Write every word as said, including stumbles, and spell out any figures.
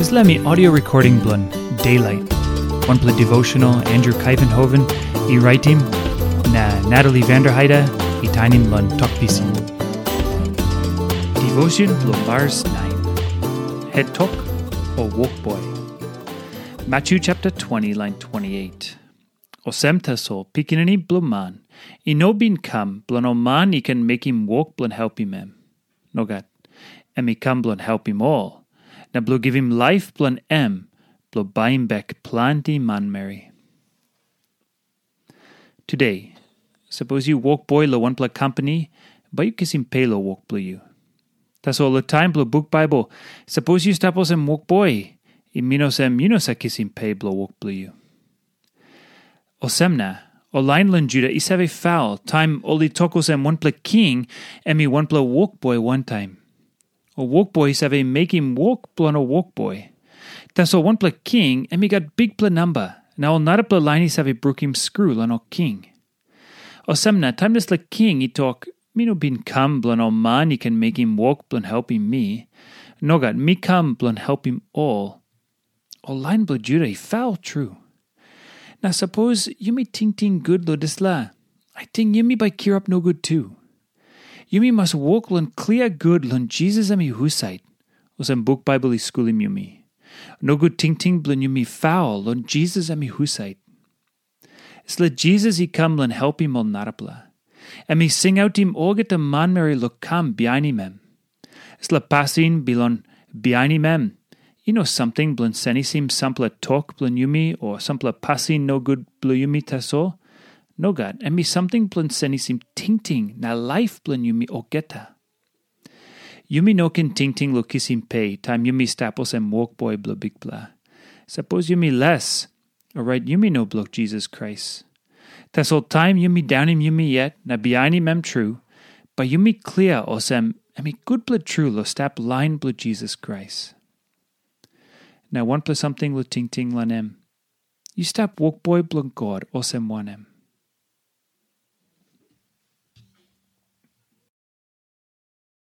Dispela mi audio recording bilong Daylight, wanpela devotional Andrew Kaivenhoven i raitim, na Natalie Vanderheide i tainim long Tok Pisin. Devotion bilong Mars nine. Het tok o wokboi. Matthew chapter twenty, line twenty-eight. Olsem tasol Pikinini Bilong Man i no bin kam bilong ol man i ken mekim wok bilong helpim em. Nogat. Em i kam bilong helpim ol, na bilong givim laip bilong em bilong baim bek planti manmeri. Today, sapos yu wokboi long wanpela kompani, bai yu kisim pe long wok bilong yu. Tasol long taim bilong buk Baibel, sapos yu stap olsem wokboi, i min olsem yu no save kisim pe bilong wok bilong yu. Olsem na, ol lain long Juda i save faul taim ol i tok olsem wanpela king em i wanpela wokboi wantaim. Ol wokboi i save mekim wok bilong ol wokboi. Tasol wanpela king em i gat bikpela namba, na ol narapela lain i save brukim skru long ol king. Olsem na, taim dispela king i tok, "Mi no bin kam bilong ol man i ken mekim wok bilong helpim mi. Nogat, mi kam bilong helpim ol." Ol lain bilong Juda i faul tru. Na sapos yumi tingting gut long dispela, ating yumi bai kirap nogut tu. Yumi mas wok long klia gut long Jisas em i husat, olsem buk Baibel i skulim yumi. Nogut tingting bilong yumi faul long Jisas em i husat. Dispela Jisas i kam long helpim ol narapela. Em i singautim olgeta manmeri long kam bihainim em. Dispela pasin bilong bihainim em i no samting bilong senisim sampela tok bilong yumi o sampela pasin nogut bilong yumi tasol. Nogat, em i samting bilong senisim tingting na laip bilong yumi olgeta. Yumi no ken tingting long kisim pe taim yumi stap olsem wokboi bilong Bikpela. Sapos yumi les, orait yumi no bilong Jisas Krais. Tasol taim yumi daunim yumi yet na bihainim em tru, bai yumi klia olsem em i gutpela tru long stap lain bilong Jisas Krais. Na wanpela samting long tingting long em. Yu stap wokboi bilong God olsem wanem?